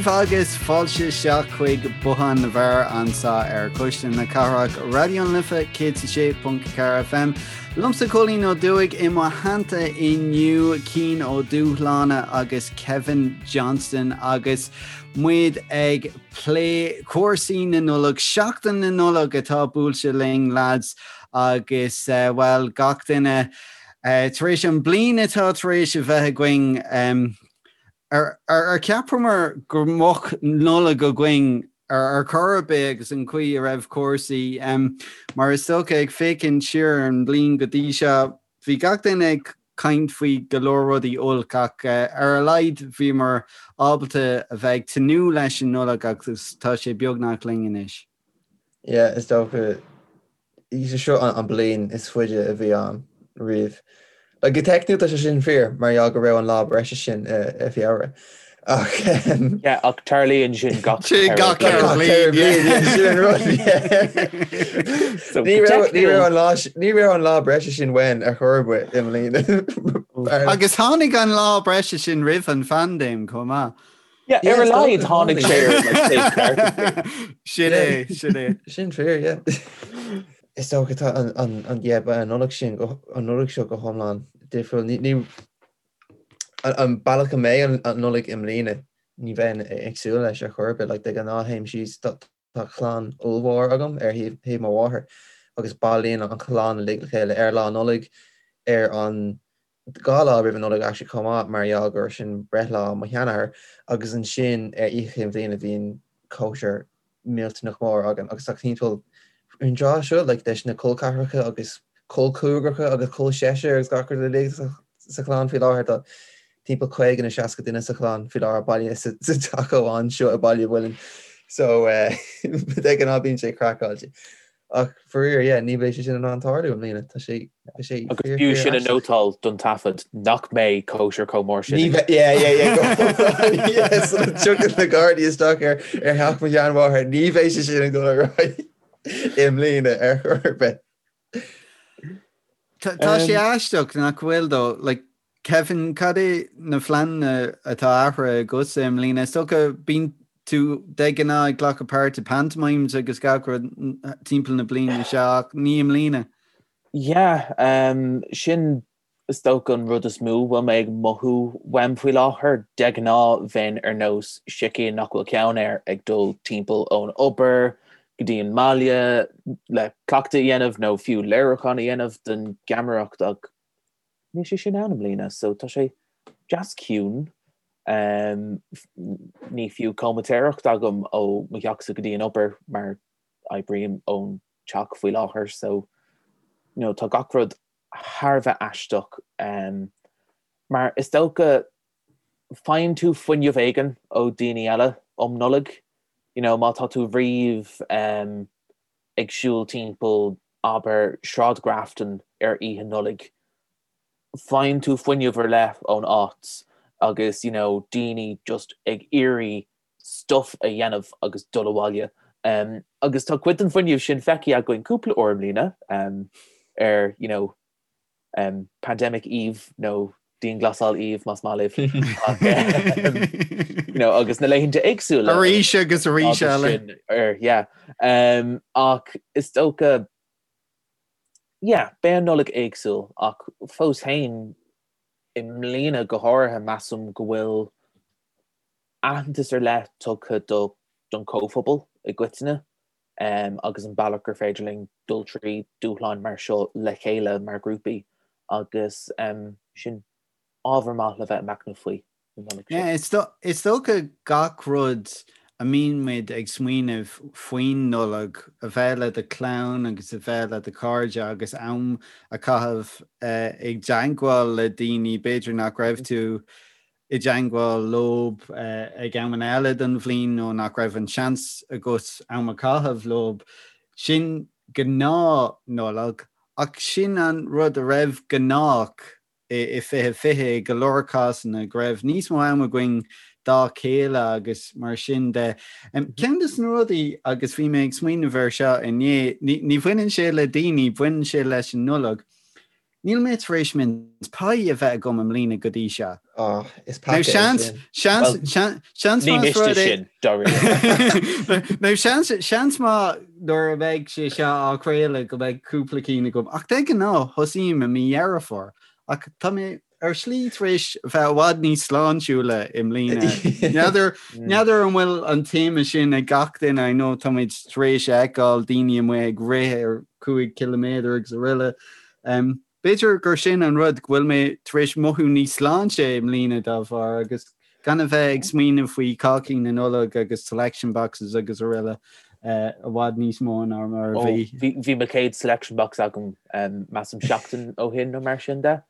daoibh agus fáilte isteach chuig Bothán na bhFear anseo ar Cuisle na Cathrach, Raidió na Life 106.4 FM. Liomsa Cóilín Ó Dufaigh i mo theannta inniu Cian Ó Dúshláine agus Kevin Johnston agus muid ag plé cúrsaí na Nollag, Seachtain na Nollag atá buailte linn lads agus bhuel gach duine tar éis an bliain atá tar éis a bheith againn ar cheapamar go mbeadh Nollaig againn ar chor ar bith agus an chaoi a raibh cúrsaí mar is dócha ag féachaint siar ar an mbliain go dtí seo bhí gach duine ag caint faoi go leor rudaí olc ach ar a laghad bhíomar ábalta a bheith ag tnúth leis an Nollaig agus tá sé beagnach linn anois. Yeah, is dócha seo an bliain is faide a bhí ann riamh. Like, go teicniúil tá sé sin fíor mar gheall go raibh an lá breise sin i Feabhra. Ach Yeah, ach tarlaíonn sin gach Sin gach ceithre bliain, sin an rud, yeah. So, Ní go raibh ní raibh teicniúil an lá ní raibh an lá breise sin uainn ar chor ar bith i mbliana. Agus tháinig an lá breise sin roimh an phaindéim chomh maith. Yeah, Yeah, ar a is laghad dócha, tháinig tháinig. sé ar like, taobh ceart an bhliain. Sin é, sin é. Sin fíor, yeah. Is dócha tá an an an yeah, ba an Nollaig sin go an Nollaig seo go hiomlán difriúil. Ní ní an an bealach a mbeidh an an Nollaig i mbliana ní bheinn ag súil leis ar chor ar bith. Like, de ghnáth théim síos tá tá clann ollmhór agam ar thaobh thaobh mo mháthar agus bailíonn an chlann uilig le chéile ar Lá Nollag ar an 2 lá roimh an Nollaig actually chomh maith mar gheall gur sin breithlá mo sheanathair agus ansin ar Oíche Chinn Bhliana bhíonn cóisir millteanach mór againn agus tá timpeall an tráth seo like leis na col ceathracha agus col cúigearacha agus col seisear agus gach rud uilig sa chlann faoi láthair tá timpeall 50 nó 60 duine sa chlann faoi láthair bailithe sa teach amháin seo i Baile Mhuilinn so de ghnáth bíonn sé craiceáilte. Ach faraor, yeah, ní bheidh sé sin in ann tarlú i mbliana. Tá sé, tá sé Agus fíor, b'fhiú fíor sin a aisteach. nótáil don taifead, nach mbeidh cóisir chomh mór sin Ní ag. bheidh, yeah, yeah, yeah, go hiomlán, yeah, sula dtiocfaidh na Gardaí isteach ar, ar theach mo sheanmháthar, ní bheidh sé sin ag dul ar aghaidh i mbliana ar chor ar bith. Tá, tá sé aisteach nach bhfuil though, like, Kevin, cad é na pleananna atá athraithe agatsa i mbliana? Is dócha, bíonn tú de ghnáth ag glacadh páirt i pantomimes agus gach rud timpeall na bliana seo ach ní i mbliana. Yeah, sin is dócha an rud is mó a bhfuil mé ag mothú uaim faoi láthair. De ghnáth bheinn ar nós sicín nach bhfuil ceann air ag dul timpeall ón obair go dtí an mbaile le cleachtadh a dhéanamh nó fiú léiriúchán a dhéanamh don gheamaireacht ach Níl sé sin ann i mbliana so tá sé deas ciúin. Ní fiú comaitéireacht agam ó mo theachsa go dtí an obair mar oibrím ón teach faoi láthair so you know tá gach rud thar a bheith aisteach mar is dócha faigheann tú fuinneamh éigin ó daoine eile um Nollaig you know má tá tú riamh ag siúl timpeall, abair, Sráid Grafton ar Oíche Nollag, faigheann tú fuinneamh ar leith ón áit agus you know daoine just ag iarraidh stuff a dhéanamh agus dul abhaile. Agus tá cuid den fuinneamh sin feicthe againn cúpla uair i mbliana ar you know Pandemic Eve nó Dianghlasáil Eve más maith libh ach you know agus na laethanta éagsúla. Arís agus arís eile. Ar yeah. Ach is dócha yeah beidh an Nollaig éagsúil ach fós féin i mbliana go háirithe measaim go bhfuil aitheantas ar leith tugtha do don chomhphobal i gcoitinne. agus an bealach gur féidir linn dul trí dúshláin mar seo le chéile mar ghrúpaí agus sin ábhar maith le bheith ag machnamh faoi an Nollaig seo. Is dócha gach rud a mbíonn muid ag smaoineamh faoin Nollaig, a bheith le do chlann agus a bheith le do chairde agus am a chaitheamh i dteagmháil le daoine b'fhéidir nach raibh tú i dteagmháil leob ag amanna eile den bhliain nó nach raibh an seans agat am a chaitheamh leob. Sin gnáth-Nollaig, ach sin an rud a raibh gnách i 2020 i go leor cásanna, go raibh níos mó am againn dá chéile agus mar sin de. Ceann de na rudaí, agus bhí mé ag smaoineamh air seo inné, ní bhaineann sé le daoine, baineann sé leis an Nollaig. Níl mé tar éis mince pie a bheith agam i mbliana go dtí seo. Oh, is peaca é sin. Seans, seans, seans Ní miste sin, dáiríre. Nó seans, seans maith nuair a bheidh sé seo á chraoladh go mbeidh cúpla cinn agam. Ach de ghnáth, thosaím i mí Dheireadh Fómhair. Ach tá mé ar shlí tar éis bheith i bhfad níos sláintiúla i mbliana. N'fheadar, n'fheadar an bhfuil an téama sin ag gach duine, I know táimid tar éis a fheiceáil daoine amuigh ag rith ar 5 ciliméadar agus araile. Um, b'fhéidir gur sin an rud go bhfuil mé tar éis mothú níos sláinte i mbliana dá bharr agus gan a bheith ag smaoineamh faoi cácaí na Nollag agus selection boxes agus araile i bhfad níos mó ná mar a bhí. Bhí mo chéad selection box agam measaim seachtain ó shin nó mar sin de.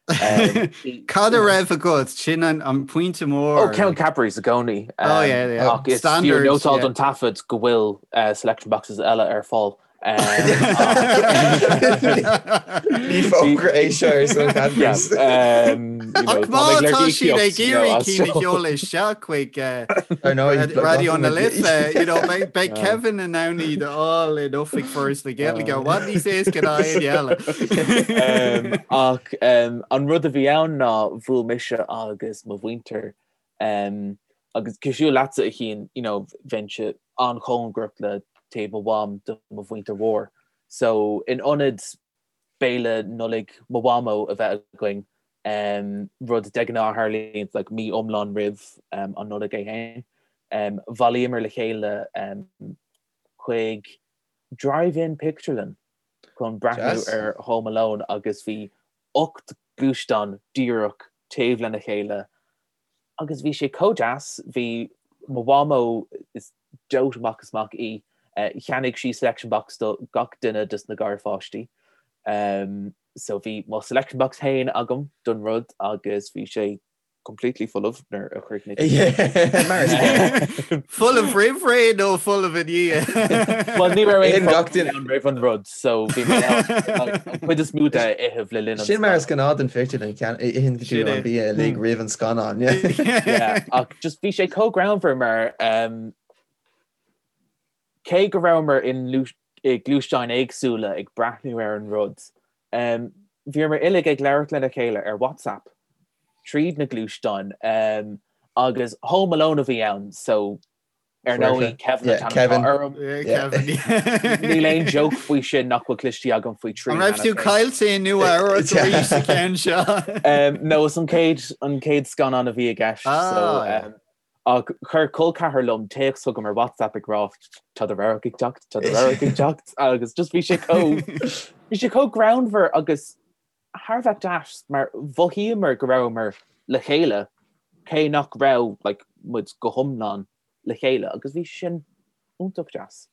Cad a raibh agat? Sin an pointe mór. Ó ceann Cadbury's i gcónaí. Ach is fiú nótáil don taifead go bhfuil selection boxes eile ar fáil. Ní fógra é seo ar son Cadbury's. Ach má tá siad ag iarraidh cinn a sheoladh isteach chuig Raidió na Life, beidh Kevin in ann iad a fháil in oifig Foras na Gaeilge i bhfad níos éasca ná éinne eile. Ach an rud a bhí ann ná bhuail mise agus mo mhuintir Agus cosúil leatsa a Chian, you know, bheinnse an-chóngarach le taobh mo mham do mo mhuintir mhór. So in ionad béile Nollaig mo mhamó a bheith againn, rud de ghnáth a tharlaíonn like mí iomlán roimh an Nollaig é féin, bhailíomar le chéile chuig drive-in pictiúrlann chun breathnú ar Home Alone agus bhí 8 gluaisteán díreach taobh lena chéile agus bhí sé chomh deas, bhí mo mhamó, is dote amach is amach í, cheannaigh sí selection box do gach duine dos na garpháistí so bhí mo selection box féin agam don rud agus bhí sé completely folamh nuair a chríochnaigh. Mar is gnáth. Folamh roimh ré nó folamh i ndiaidh? Well ní raibh aon gach duine ann roimh an rud so bhí mé an chuid is mó de a ithe le linn an Sin mar is gnáth don phictiúrlann itheann tú an bia uilig roimh an scannán. Yeah, ach just bhí sé chomh greannmhar mar um, cé go rabhamar i ngluaisteáin éagsúla ag breathnú ar an rud, bhíomar uilig ag labhairt lena chéile ar WhatsApp tríd na gluaisteáin agus Home Alone a bhí ann so ar ndóigh Kevin an t-ainm atá orm. Níl aon joke faoi sin nach bhfuil cloiste agam faoi thrí. An raibh tú caillte i Nua Eabhrac arís sa cheann seo? No, is an chéad scannán a bhí i gceist so Ach chuir col ceathar liom téacs chugam ar WhatsApp ag rá tá do radharc ag teacht, tá do radharc ag teacht agus just bhí sé chomh, bhí sé chomh greannmhar agus thar a bheith deas mar mhothaíomar go rabhamar le chéile cé nach raibh like muid go hiomlán le chéile agus bhí sin iontach deas.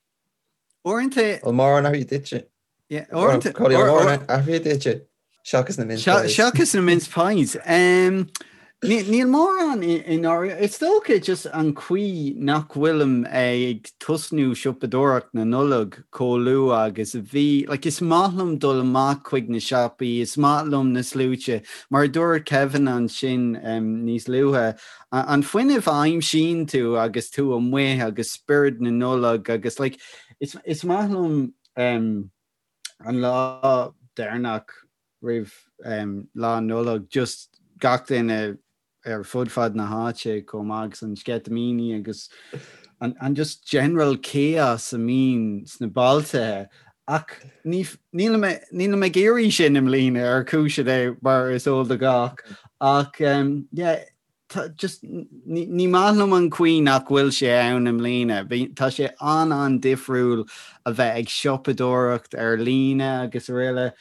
Uaireanta. Bhfuil mórán athraithe duitse? Athraithe duitse seachas na mince pies. Seachas na mince pies. Níl mórán i ndáiríre. Is dócha just an chaoi nach bhfuilim ag tosnú siopadóireacht na Nollag chomh luath agus a bhí. Like, is maith liom dul amach chuig na siopaí, is maith liom na sluaite. Mar a dúirt Kevin ansin níos luaithe, an fuinneamh a aimsíonn tú agus tú amuigh agus spiorad na Nollag agus like, is maith liom an lá deireanach roimh Lá Nollag, just gach duine ar fud fad na háite chomh maith agus an sceitimíní agus an just general chaos a mbíonn sna bailte ach nílim nílim ag iarraidh sin i mbliana ar chúiseanna mar is eol do gach ach yeah just ní maith liom an chaoi nach bhfuil sé ann i mbliana. Tá sé an-an-difriúil a bheith ag siopadóireacht ar líne agus araile.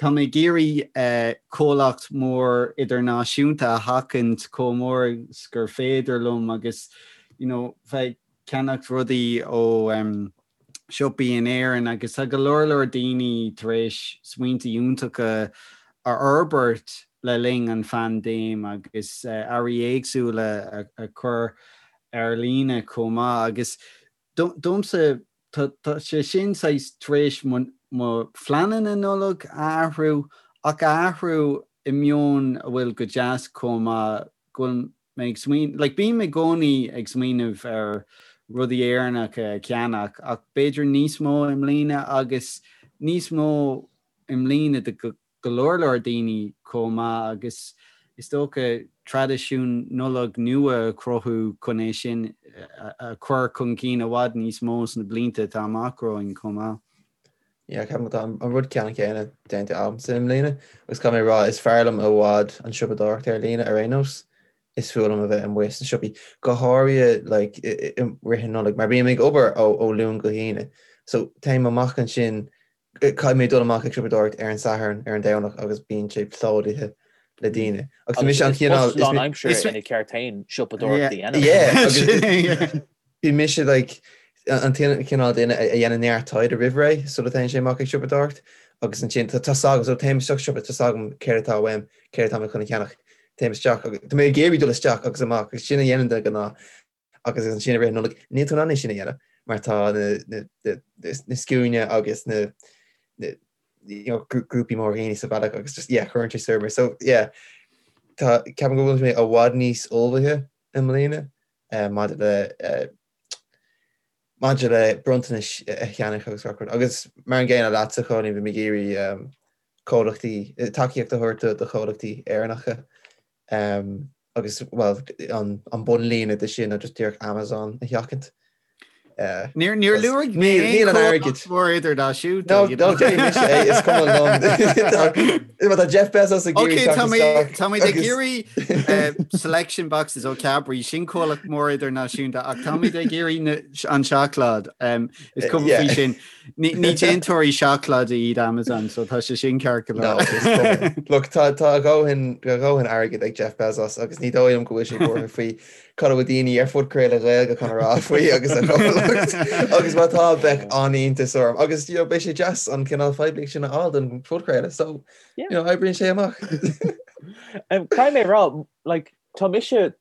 Tá mé ag iarraidh comhlacht mór idirnáisiúnta a sheachaint chomh mór is gur féidir liom agus you know bheith ag ceannacht rudaí ó siopaí in Éirinn agus tá go leor leor daoine tar éis smaointe iontacha a fhorbairt le linn an phaindéim agus earraí éagsúla a chur ar líne chomh maith agus domsa tá sé sin saghas tar éis mo phleananna Nollag a athrú ach a athrú i meon a bhfuil go deas chomh maith go bhfuil mé ag smaoineamh, like bím i gcónaí ag smaoineamh ar rudaí Éireannacha a cheannach ach b'fhéidir níos mó i mbliana agus níos mó i mbliana do. go leor leor daoine chomh maith agus is dócha traidisiún Nollag nua a chruthú chun é sin a chur chun cinn i bhfad níos mó sna blianta atá amach romhainn chomh maith. Yeah, ceapaim tá an rud ceannann céanna déanta agamsa i mbliana agus caithfidh mé a rá is fearr liom i bhfad an siopadóireacht ar líne ar aon nós. Is fuath liom a bheith amuigh sna siopaí, go háirithe like i rith an Nollaig mar bím ag obair ó ó Luan go hAoine. So téim amach ansin Caithfidh mé dul amach ag siopadóireacht ar an Satharn, ar an Domhnach agus bíonn sé plódaithe le daoine. Agus mise an cineál. Is lánaimseartha ina ceart féin siopadóireacht a dhéanamh. Yeah, agus bhí mise like an cineál duine a dhéanann neart taighde roimh ré sula dtéann sé amach ag siopadóireacht agus ansin tá a fhios agam, so téim isteach sa siopa, tá a fhios agam céard atá uaim, céard atá mé chun a cheannach, téim isteach agus tá mé ag iarraidh dul isteach agus amach agus sin a dhéanann de ghnáth. Agus ansin i rith na Nollag, níl tú in ann é sin a dhéanamh mar tá na scuainí agus na grúpaí móra daoine sa bhealach agus just yeah cuireann sé soir mé. So yeah tá ceapaim go bhfuil mé i bhfad níos ullmhaithe i mbliana maidir le maidir le bronntanais a cheannach agus gach rud. Agus mar an gcéanna leatsa Chóilín, bhí mé ag iarraidh comhlachtaí, tacaíocht a thabhairt do chomhlachtaí Éireannacha. Agus, bhuel, an bunlíne de sin ná just díreach Amazon a sheachaint. Níor níor luaigh mé Níl an airgead. mór idirnáisiúnta. No, no, déanfaidh mise é, is cuma liom. Má tá Jeff Bezos ag iarraidh teacht isteach. Tá muid ag iarraidh selection boxes ó Cadbury, sin comhlacht mór idirnáisiúnta, ach táimid ag iarraidh an seacláid. Is cuma faoi sin. Ní déantóirí seacláide iad Amazon, so tá sé sin ceart go leor. Look, tá a dhóthain airgid ag Jeff Bezos agus ní dóigh liom go bhfuil sé buartha faoi cad a bhfuil daoine ar phodchraoladh Ghaeilge chun a rá faoi agus a chomhlacht agus má tá bheadh an-iontas orm agus you know, beidh sé deas an cineál phoiblíocht sin a fháil don phodchraoladh so you know, oibríonn sé amach. Caithfidh mé a rá, like, tá mise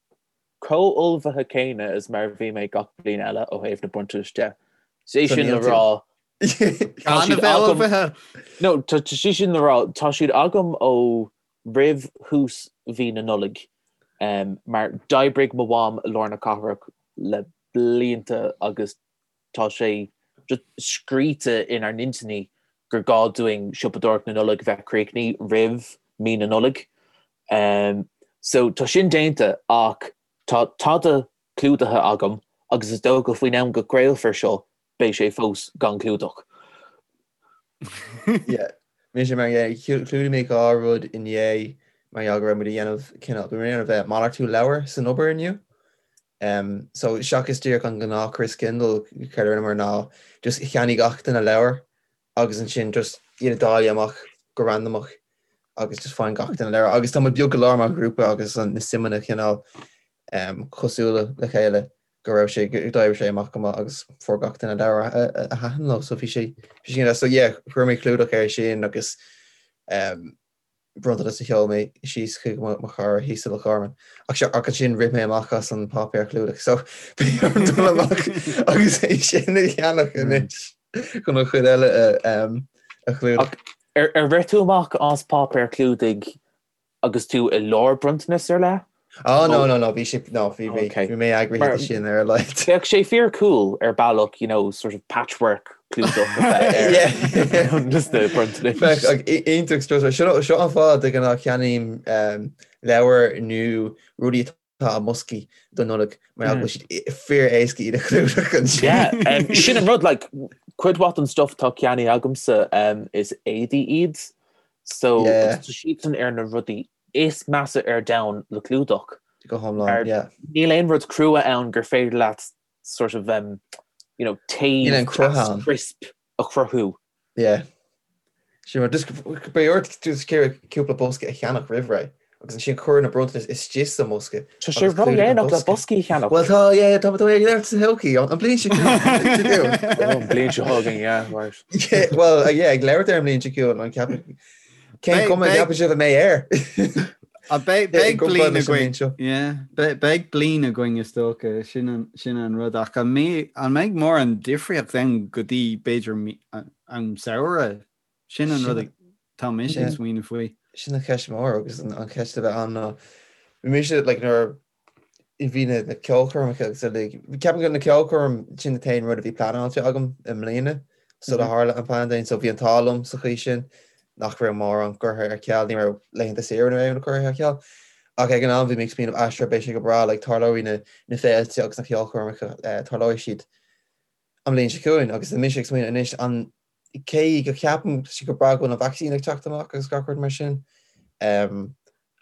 chomh ullmhaithe céanna is mar a bhí mé gach bliain eile ó thaobh na bronntanais de. Is é sin le rá, tá siad agam, no, tá sé sin le rá, tá siad agam ó roimh thús mhí na Nollag, mar d'oibrigh mo mham i lár na cathrach le blianta agus tá sé just scríte inár n-intinní gur gá dúinn siopadóireacht na Nollag a bheith críochnaithe roimh mí na Nollag. So tá sin déanta ach tá tada clúdaithe agam agus is dócha faoin am go gcraolfar seo beidh sé fós gan clúdach. Yeah. Mise mar yeah, chlúdaigh mé dhá rud inné mar gheall go raibh muid ag déanamh cineál, bhí muid ag déanamh malartú leabhar san obair inniu. So seachas díreach an gnáth Christkindl, céard a rinneamar ná just cheannaigh gach duine leabhar agus ansin just iad a dáileadh amach go randamach agus just faigheann gach duine leabhar. Agus tá muid beag go leor mar ghrúpa agus na suimeanna cineál cosúil le chéile go raibh sé, go d'oibrigh sé amach go maith agus fuair gach duine leabhar a thaitin leo. So bhí sé, bhí sé so yeah, chuir mé clúdach air sin agus bronntanas a sheol mé síos chuig mo chara thíos i Loch Garman. Ach seo, ach ansin rith mé amach as an páipéar clúdaigh so beidh orm dul amach agus é sin a cheannach anois chun an chuid eile a chlúdach. Ach ar rith tú amach as páipéar clúdaigh agus tú i lár bronntanas ar leith? Oh no no no bhí sé no bhí bhí bhí mé eagraithe de sin ar a laghad. Bheadh sé fíor cool ar bealach you know sort of patchwork clúdach a bheith ar just na bronntanais. Bheadh ach iontach strusmhar. Seo seo an fáth de ghnáth ceannaím leabhair nó rudaí atá i mboscaí don Nollaig mar go bhfuil siad fíor éasca iad a chlúdach ansin. Yeah, sin an rud like cuid mhaith den stuff atá ceannaithe agamsa is éadaí iad so tá siadsan ar na rudaí is measa ar domhan le clúdach. Go hiomlán, yeah. Níl aon rud crua ann gur féidir leat sort of um, you know, taobh crisp a chruthú. Yeah. Sin mar, just beidh ort just cúpla bosca a cheannach roimh ré agus ansin cuir na bronntanais istigh sa mbosca. Tá sé ródhéanach le boscaí a cheannach. Well tá, yeah, tá tá ag labhairt sa todhchaí, an bliain seo chugainn. An bliain seo chugainn, yeah, right. Yeah, well, yeah, ag labhairt ar an mbliain seo chugainn, an ceapann Cén chuma a gceapann sibh a mbeidh air? Beidh bliain againn. Beidh bliain againn is dócha, sin an rud. Ach an mbeidh mórán difríocht ann go dtí b'fhéidir an samhradh? Sin an rud atá mise ag smaoineamh faoi. Sin an cheist mhór agus an cheist a bheidh ann ná bhí mise like nuair a bhí na ceolchoirmeacha agus uilig, ceapaim go na ceolchoirm sin an t-aon rud a bhí pleanáilte agam i mbliana sula tharla an paindéim so bhí an t-ádh liom sa chaoi sin. nach raibh mórán curtha ar ceal, ní raibh laethanta saoire nó aon rud curtha ar ceal. Ach ag an am bhí mé ag smaoineamh ah sure beidh sé go breá, like tarlóidh na na féilte agus na ceolchoirmeacha, eh, tarlóidh siad an bhliain seo chugainn agus tá mise ag smaoineamh anois an cé go ceapaim sé go breá go bhfuil an vacsaín ag teacht amach agus gach rud mar sin um,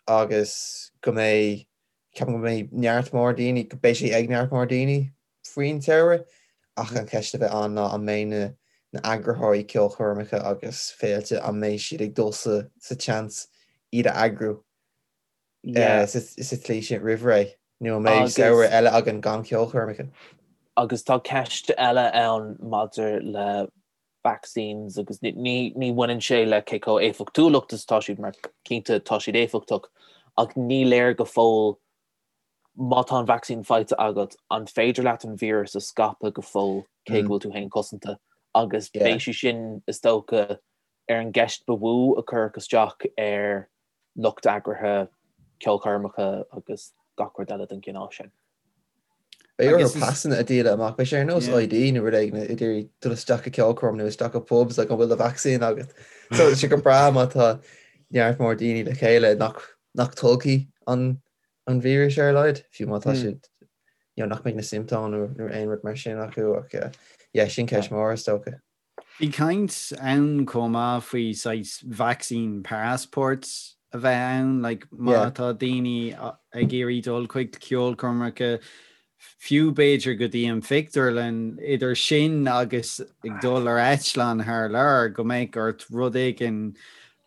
agus go mbeidh ceapaim go mbeidh neart mór daoine, go beidh sé ag neart mór daoine faoin tsamhradh ach an cheist a bheidh ann ná an mbeidh na na eagraitheoirí ceolchoirmeacha agus féilte an mbeidh siad ag dul sa sa tseans iad a eagrú Yeah. sa sa tslí sin roimh ré nó an mbeidh samhradh eile againn gan ceolchoirmeacha. Agus tá ceist eile ann maidir le vaccines agus ní ní bhaineann sé le cé chomh éifeachtúlacht is atá siad mar cinnte tá siad éifeachtach ach ní léir go fóill má tá an vacsaín faighte agat, an féidir leat an víreas a scaipeadh go fóill cé go bhfuil tú féin cosanta? Agus beidh sé sin, is dócha, ar an gceist ba mhó a cuirfeadh isteach ar lucht eagraithe ceolchoirmeacha agus gach rud eile den chineál sin. Beidh orthu pasanna a dhíol amach, beidh sé ar nós ID nó rud éigin ag iarraidh dul isteach i ceolchoirm nó isteach i pubs like an bhfuil do vacsaín agat. So tá sé go breá má tá neart mór daoine le chéile nach nach dtolgfaidh an an víreas ar a laghad, fiú má tá siad you know, nach mbeidh na siomptóim nó nó aon rud mar sin acu ach eh, yeah, sin ceist mhór is dócha. Bhí caint ann chomh maith faoi saghas vaccine passports a bheith ann, like má Yeah. tá daoine ag iarraidh dul chuig ceolchoirmeacha, fiú b'fhéidir go dtí an phictiúrlann, idir sin agus ag dul ar eitleán thar lear, go mbeadh ort rud éigin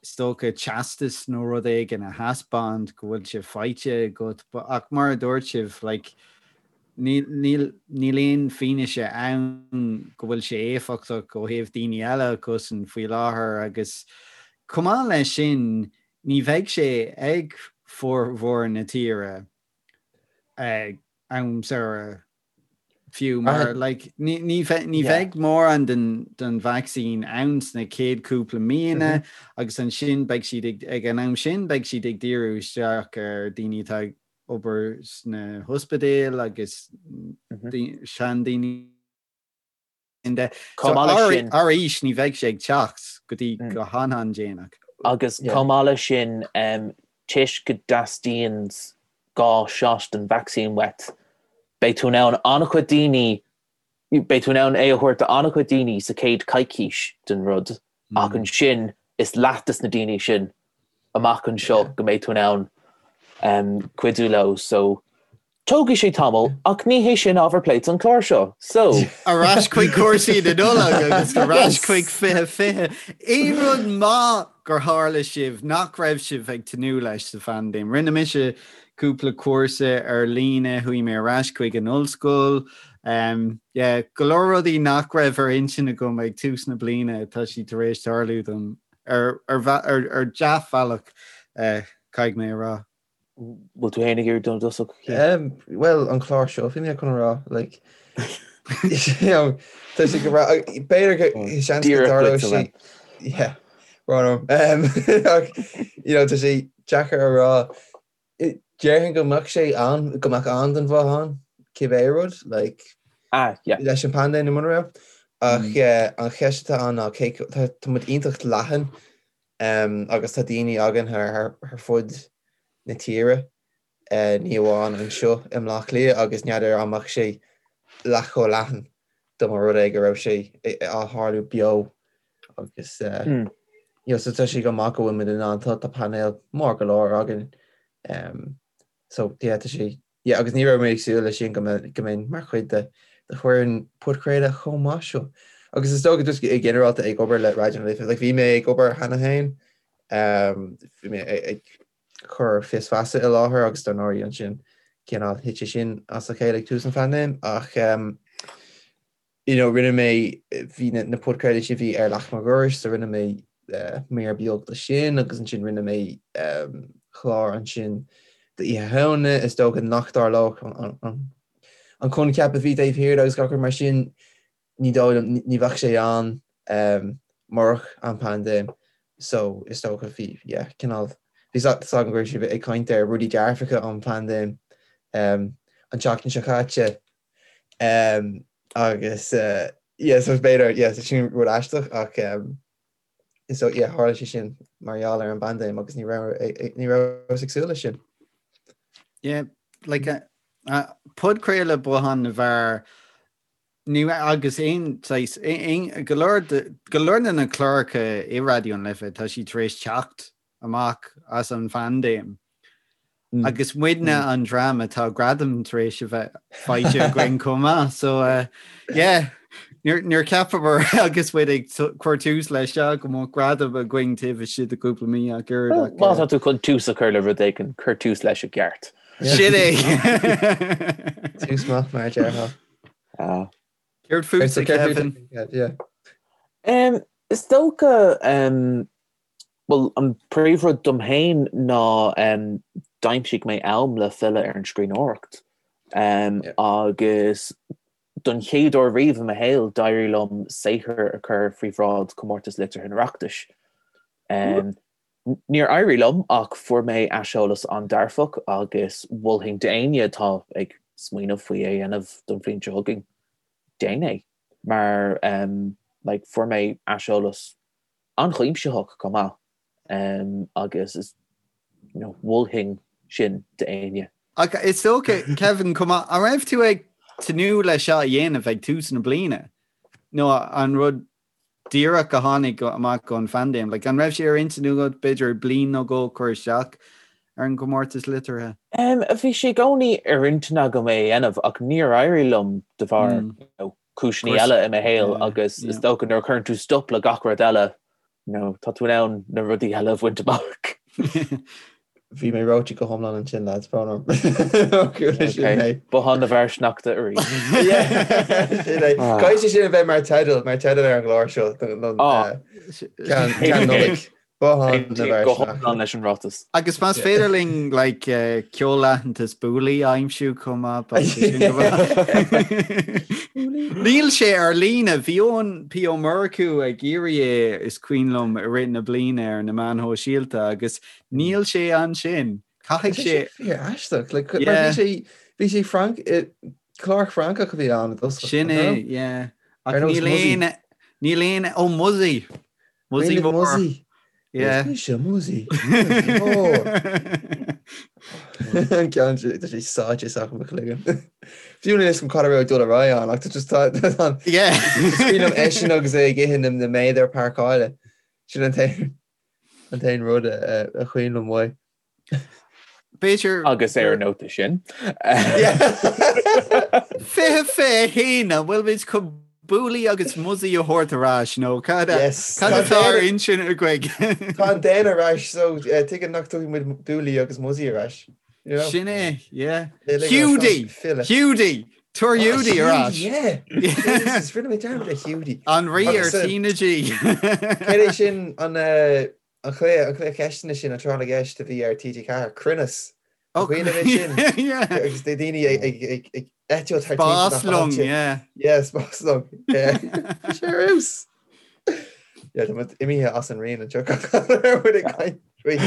is dócha teastas nó rud éigin a thaispeáint go bhfuil sé faighte agat. Ach mar a dúirt sibh, like, níl, níl, níl aon fianaise ann go bhfuil sé éifeachtach ó thaobh daoine eile a chosaint faoi láthair agus chomh maith leis sin, ní bheidh sé ag formhór na tíre ag am samhraidh fiú mar like ní ní ní bheidh mórán den den vacsaín ann sna chéad cúpla míonna agus ansin beidh siad ag ag an am sin beidh siad ag díriú isteach ar daoine atá ag obair sna hospidéil agus seandaoine. Chomh maith leis sin. Arís, ní bheidh sé ag teacht go dtí go han-an-déanach. Agus chomh maith leis sin, toisc go dteastaíonn 2 shot den vacsaín uait, beidh tú in ann an-chuid daoine, beidh tú in ann é a thabhairt do an-chuid daoine sa chéad coicís den rud, ach ansin is leath des na daoine sin amach anseo go mbeidh tú in ann cuidiú leo. So, tógfaidh sé tamall, ach ní hé sin ábhar plé don chlár seo. So. Ar ais chuig cúrsaí na Nollag agus ar ais chuig 2020. Aon rud maith gur tharla sibh nach raibh sibh ag tnúth leis sa phaindéim? Rinne mise cúpla cúrsa ar líne, chuaigh mé ar ais chuig an ollscoil. Yeah, go leor rudaí nach raibh ar intinn agam ag tús na bliana, tá siad tar éis tarlú dom. Ar ar dea-bhealach, caithfidh mé a rá. Bhfuil tú féin ag iarraidh dul i dtosach? Bhuel, an clár seo, bhí mé chun a rá, like, you know, tá sé go breá, b'fhéidir go seans go dtarlódh sé, yeah, rán orm, ach, you know, tá sé deacair a rá, Déarfainn go mbeadh sé ann, go mbeadh an den mhaith ann, cibé rud, like, Ah, yeah. leis an bpaindéim nó mura raibh. Ach eh, an cheist atá ann ná cé tá tá muid iontach leathan em, agus tá daoine againn thar, thar, thar fud na tíre, eh, ní amháin anseo i mBleá Cliath agus n'fheadar an mbeadh sé leath chomh leathan dá mba rud é go raibh sé á tharlú beo agus you know so tá sé go maith go bhfuil muid in ann tá tá painéal mór go leor againn um, so yeah tá sé yeah agus ní raibh mé ag súil leis sin go mbeinn go mbeinn mar chuid de de fhoireann podchraoladh chomh maith seo. Agus is dócha just i ginearálta ag obair le Raidió na Life like bhí mé ag obair cheana féin um, bhí mé ag cur Fios Feasa i láthair agus dar ndóigh ansin cineál thit sé sin as a chéile ag tús an phaindéim ach um, you know, rinne mé bhí na, na podchraoltaí sin bhí ar Leac Mo Dhorais so rinne mé uh, mír beag de sin agus ansin rinne mé um, clár ansin d'Oíche Shamhna is dócha nach dtarlódh an, an, an, an coincheap a bhí taobh thiar agus gach rud mar sin ní dóigh liom, ní bheadh sé ann murach an paindéim so is dócha bhí, yeah, cineál, bhí a fhios agam go raibh sibh ag caint ar rudaí dearfacha ón bpaindéim an tseachtain seo caite agus yeah, so b'fhéidir, yeah, so sin rud aisteach ach. So yeah, tharla sé sin mar gheall ar an bpaindéim agus ní raibh ní rabhas ag súil leis sin. Yeah, like uh, uh, podchraoladh Bothán na bhFear ní agus aon saghas aon go leor go leor de na cláracha i Raidió na Life tá siad tar éis teacht amach as an phaindéim. Agus muidne an dream atá gradam tar éis a bheith faighte againn chomh maith. So uh, yeah, níor cheapamar agus muid ag cur tús leis seo go mbeadh gradam againn taobh istigh de chúpla mí ach oiread. Má tá tú chun tús a chur le rud éigin, cuir tús leis i gceart. Sin é. Tús maith mar a déarfá. Ah. Céard fútsa, Kevin? Is dócha Bhuel, an príomhrud dom féin ná d'aimsigh mé am le filleadh ar an scríbhneoireacht. Agus don chéad uair riamh i mo shaol, d'éirigh liom saothar a chur faoi bhráid Chomórtas Liteartha an Oireachtais. Níor éirigh liom ach fuair mé aiseolas an-dearfach agus mholfainn d'éinne atá ag smaoineamh faoi é a dhéanamh don bhliain seo chugainn, déan é mar like fuair mé aiseolas an-chuimsitheach chomh maith agus is you know mholfainn sin d'éinne. Ach is dócha, Kevin, chomh maith, an raibh tú ag tnúth leis seo a dhéanamh ag tús na bliana? Nó an rud díreach a tháinig amach ón phaindéim? Like, an raibh sé ar intinn agat b'fhéidir bliain nó dhó cur isteach ar an gcomórtas liteartha? Bhí sé i gcónaí ar intinn agam é a dhéanamh ach níor éirigh liom de bharr you know, cúiseanna eile i mo shaol agus is dócha nuair a chuireann tú stop le gach rud eile, you know, tá tú in ann na rudaí eile a bhaint amach. Bhí mé reoite go hiomlán ansin, lads, brón orm. Bothán na bhFear Sneachta arís. Sin é. Caithfidh sé sin a bheith mar teideal, mar teideal ar an gclár seo don ceann Nollaig. Bothán na bhFear Go hiomlán leis an ráiteas. Agus más féidir linn like, ceol-aitheantas Bouli a aimsiú chomh maith, beidh sé sin go maith. Níl sé ar líne, bhí Eoin P. Ó Murchú ag iarraidh é is cuimhin liom i rith na bliana ar na meáin shóisialta agus níl sé ansin. Caithfidh sé... Fíor aisteach, like, mar bhí sé, bhí sé Franc, clár Francach a bhí ann i dtosach. Sin é, yeah. Ach níl aon, níl aon, ó Muzzy! Muzzy Mór. Muzzy. Yeah. Is mise Muzzy. Muzzy Mór. An ceann sin, tá sé sáite isteach i mo chloigeann. Fiú níl a fhios agam cad a raibh ag dul ar aghaidh ann ach tá just tá tá Yeah. Is cuimhin liom eisean agus é ag ithe na na méadar páirceála. Sin an t-aon an t-aon rud a a cuimhin liom uaidh. B'fhéidir. Agus ar an nóta sin. 2021 an bhfuil muid chun Bouli agus Muzzy a thabhairt ar ais nó cad atá ar intinn agaibh? Tá an daon ar ais so tuige nach dtabharfaidh muid Bouli agus Muzzy ar ais. Sin é, yeah. Hiúdaí! Hiúdaí! Tabhair Hiúdaí ar ais! Yeah! Jesus, rinne mé dearmad ar Hiúdaí. An rí ar TnaG. Céard é sin an An cluiche, an cluiche ceisteanna sin, an tráth na gceist a bhí ar TG4, Cruinneas. An cuimhin libh é sin? Yeah. Agus daoine ag, ag, ag, ag eitilt thar timpeall na Spáslong, háite. yeah. Yeah, spáslong. Yeah. Bhí sé ar fheabhas. Yeah, tá muid imithe as an raon anseo. Ar muid ag caint faoi.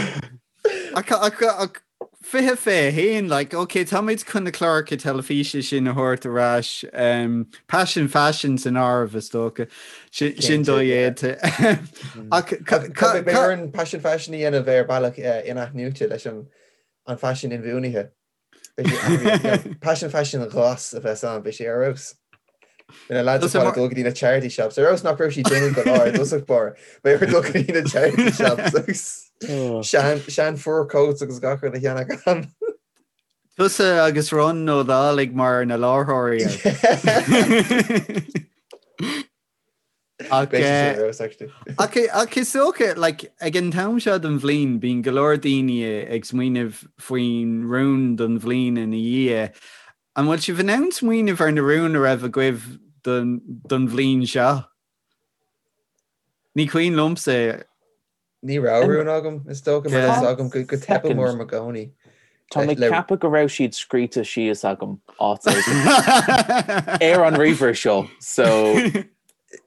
Ach, ach, ach 2021, like, ok, táimid chun na cláracha teilifíse sin a thabhairt ar ais, um, Paisean Faisean san áireamh is dócha, sin, sin dodhéanta. Ach beidh orainn Paisean Faisean a dhéanamh ar bealach in-athnuaite leis an an faisean inbhuanaithe. Beidh sé athraithe. Paisean Faisean ghlas a bheas ann, beidh sé ar fheabhas. Beidh na lads ar fad ag dul go dtí na charity shops. Ar fheabhas nach raibh siad dona go leor i dtosach báire. Beidh orthu dul go dtí na charity shops agus sean, sean fur coats agus gach rud a cheannach ann. Tusa agus Ron Ó Dálaigh mar na láithreoirí air. Ach, Beidh sé sin ar fheabhas, actually. Ach, ach is dócha, like, ag an t-am seo den bhliain, bíonn go leor daoine ag smaoineamh faoin rún don bhliain ina dhiaidh. An bhfuil sibh in ann smaoineamh ar na rúin a raibh agaibh don bhliain seo? Ní cuimhin liomsa. Ní raibh rún agam, is dócha, mar tá a fhios agam go dteipeann orm i gcónaí. Tá mé ag ceapadh go raibh siad scríte síos agam áit éigin ar an ríomhaire seo, so.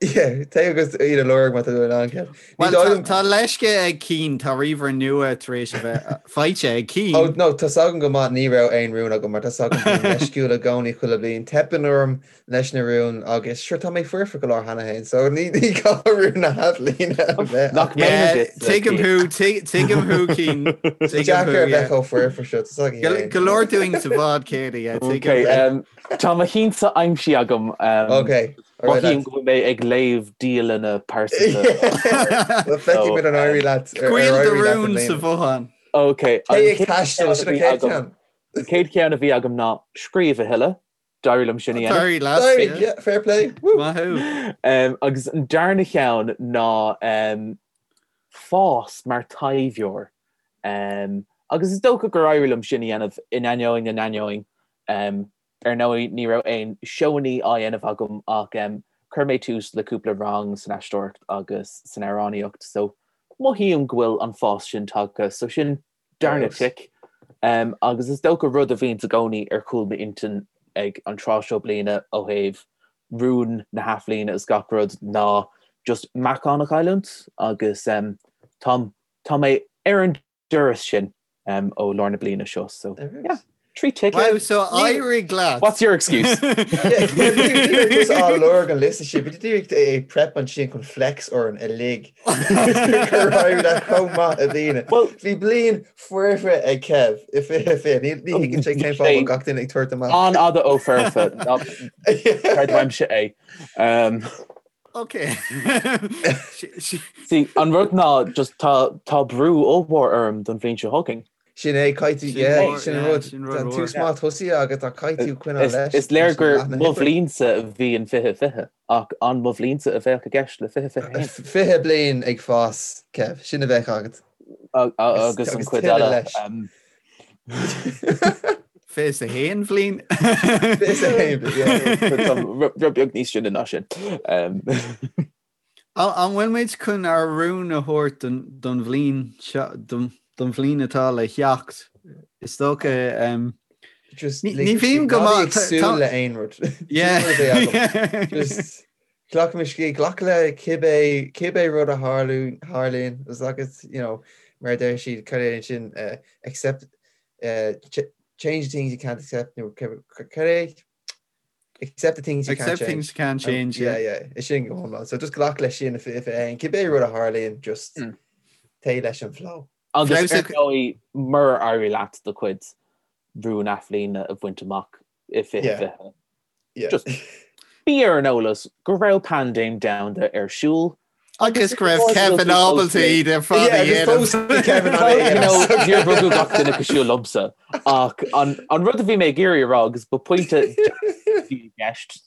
Yeah, téigh agus iad a lorg má tá tú in ann, Kev. Ní Well, dóigh tá liom- tá leisce ag Cian, tá ríomhaire nua tar éis a bheith faighte ag Cian. Oh, no, tá's agam go maith ní raibh aon rún agam mar tá's agam bím leisciúil i gcónaí chuile bliain. Teipeann orm leis na rúin agus sure tá mé foirfe go leor cheana féin so ní ní gá rún na hathbhliana a bheith Nach agam. mé Yeah, duit, tuigim Cian. thú, tuig- tuigim thú, Cian. Tá Tuigim deacair thú, a bheith yeah. chomh foirfe seo, tá's againn Go féin. go leor dúinn sa bhád céanna, yeah, tuigim Okay, thú. um, tá mo cheannsa aimsithe agam. Um, Okay, all right Mothaím lads. go bhfuil mé ag léamh dialanna pearsanta. Well, feicfidh muid an éirí leat ar ar Scaoil do éirí leat i rún sa mbliana. bhothán. Okay, an Téigh ag chéad taisteal, cheann a sin an bhí chéad agam, cheann. an chéad cheann a bhí agam ná scríobh a thuilleadh. D'éirigh liom sin a dhéanamh. D'éirigh leat, D'éirigh, yeah. yeah, fair play. Woo! Maith thú. Um, agus an darna cheann ná um, fás mar taibheoir. Um, agus is dócha gur éirigh liom sin a dhéanamh in ainneoin na n-ainneoin. Um, ar ndóigh ní raibh aon seóanna á dhéanamh agam ach um, chuir mé tús le cúpla rang san aisteoireacht agus san amhránaíocht, so mothaím go bhfuil an fás sin tagtha, so sin darna tic. Agus is dócha rud a bhíonns i gcónaí ar chúl m'intinn ag an tráth seo bliana ó thaobh rún na hathbhliana is gach rud ná just meáchan a chailliúint agus tá tá mé ar an dturas sin ó lár na bliana seo so yeah. 3 tic. Wow, so éirigh leat. What's your excuse? Ní raibh tusa á lorg an liosta sin, bhí tú díreach ag prep ansin chun flex orainn uilig. Gur éirigh leat chomh maith i mbliana. Bhí bliain foirfe ag Kev i 2020. Ní thuigeann sé cén fáth a bhfuil gach duine ag tabhairt amach. An-fhada ó foirfe. Creid uaimse é. Ok. See, an rud ná just tá tá brú ollmhór orm don bhliain seo chugainn. Sin é, caithfidh tú, Sin yeah, mór, sin an yeah, rud. sin rud Tá an mór. tús maith tosaithe agat ach caithfidh tú coinneáil Is, leis is léir leis an gur leath na mo hoibre. bhliainsa a bhí in 2020 ach an mo bhliainsa a bheadh i gceist le 2021. 20 bliain ag fás, Kev, sin a bheadh agat. A- a- Agus, Agus an agus chuid tuilleadh eile. leis. Um, 21 bhliain. 21 bliain, yeah. Tá rud beag níos sine ná sin. Um, An bhfuil muid chun ár rún a thabhairt don bhliain seo, don bhliain atá le theacht? Is dócha, Just ní bhím go ná bí maith, ag súil le aon rud. Yeah. Sin rud a bheidh agam. Just glac mo scíth, glac le cibé, cibé rud a tharlú, tharlaíonn, is agus, you know, mar a deir siad, cad é sin, accept, change the things you can't accept, nó cad é? Accept the things you can't Accept change. things you can't change, Yeah, yeah. yeah. Is sin go hiomlán. So just glac leis sin i 2021. Cibé rud a tharlaíonn, just téigh leis an flow. Agus Fleabhas ar a- ndóigh, murar éirigh leat do chuid rún athbhliana a bhaint amach i 2020, Yeah. Just- bí ar an eolas go raibh paindéim domhanda ar siúl Agus go raibh Kevin ábalta iad ar fad a dhéanamh. Kevin Níor rugadh gach duine cosúil liomsa ach an rud a bhí mé ag iarraidh a rá agus ba pointe bhí i gceist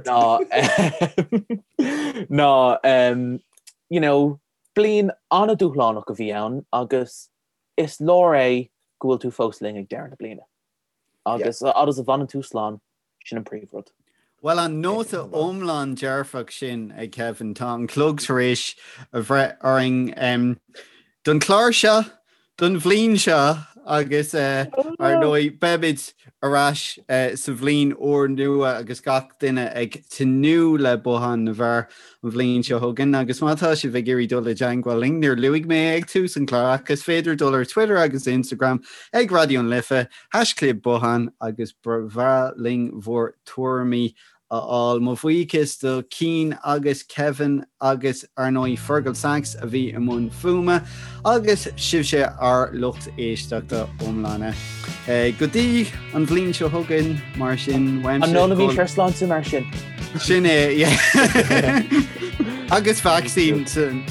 ná ná you know bliain an-dúshlánach a bhí ann agus is leor é go bhfuil tú fós linn ag deireadh na bliana. Agus a fhad is a bhfanann tú slán, Sin an príomhrud. Bhuel, an nóta iomlán dearfach sin ag Kevin, tá an clog tar éis a bhreith orainn don chlár seo, don bhliain seo agus ar ndóigh beimid ar ais sa bhliain úrnua agus gach duine ag tnúth le Bothán na bhFear an bhliain seo chugainn agus má tá sibh ag iarraidh dul i dteangmháil linn, níor luaigh mé ag tús an chláir ach is féidir dul ar Twitter agus Instagram ag Raidió na Life, Haischlib Bothán agus ba bhreá linn bhur tuairimí a fháil. Mo bhuíochas do Cian agus Kevin agus ar ndóigh Fergal Sachs a bhí i mbun fuaime agus sibhse ár lucht éisteachta iomlána. Go dtí an bhliain seo chugainn mar sin uaimse. An n-ólaimis ár sláinte mar sin? Sin é, yeah. Agus vacsaín san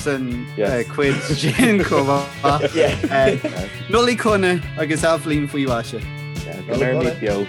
cuid sin chomh maith. Nollaig shona agus athbhliain faoi mhaise. Go mbeimid beo.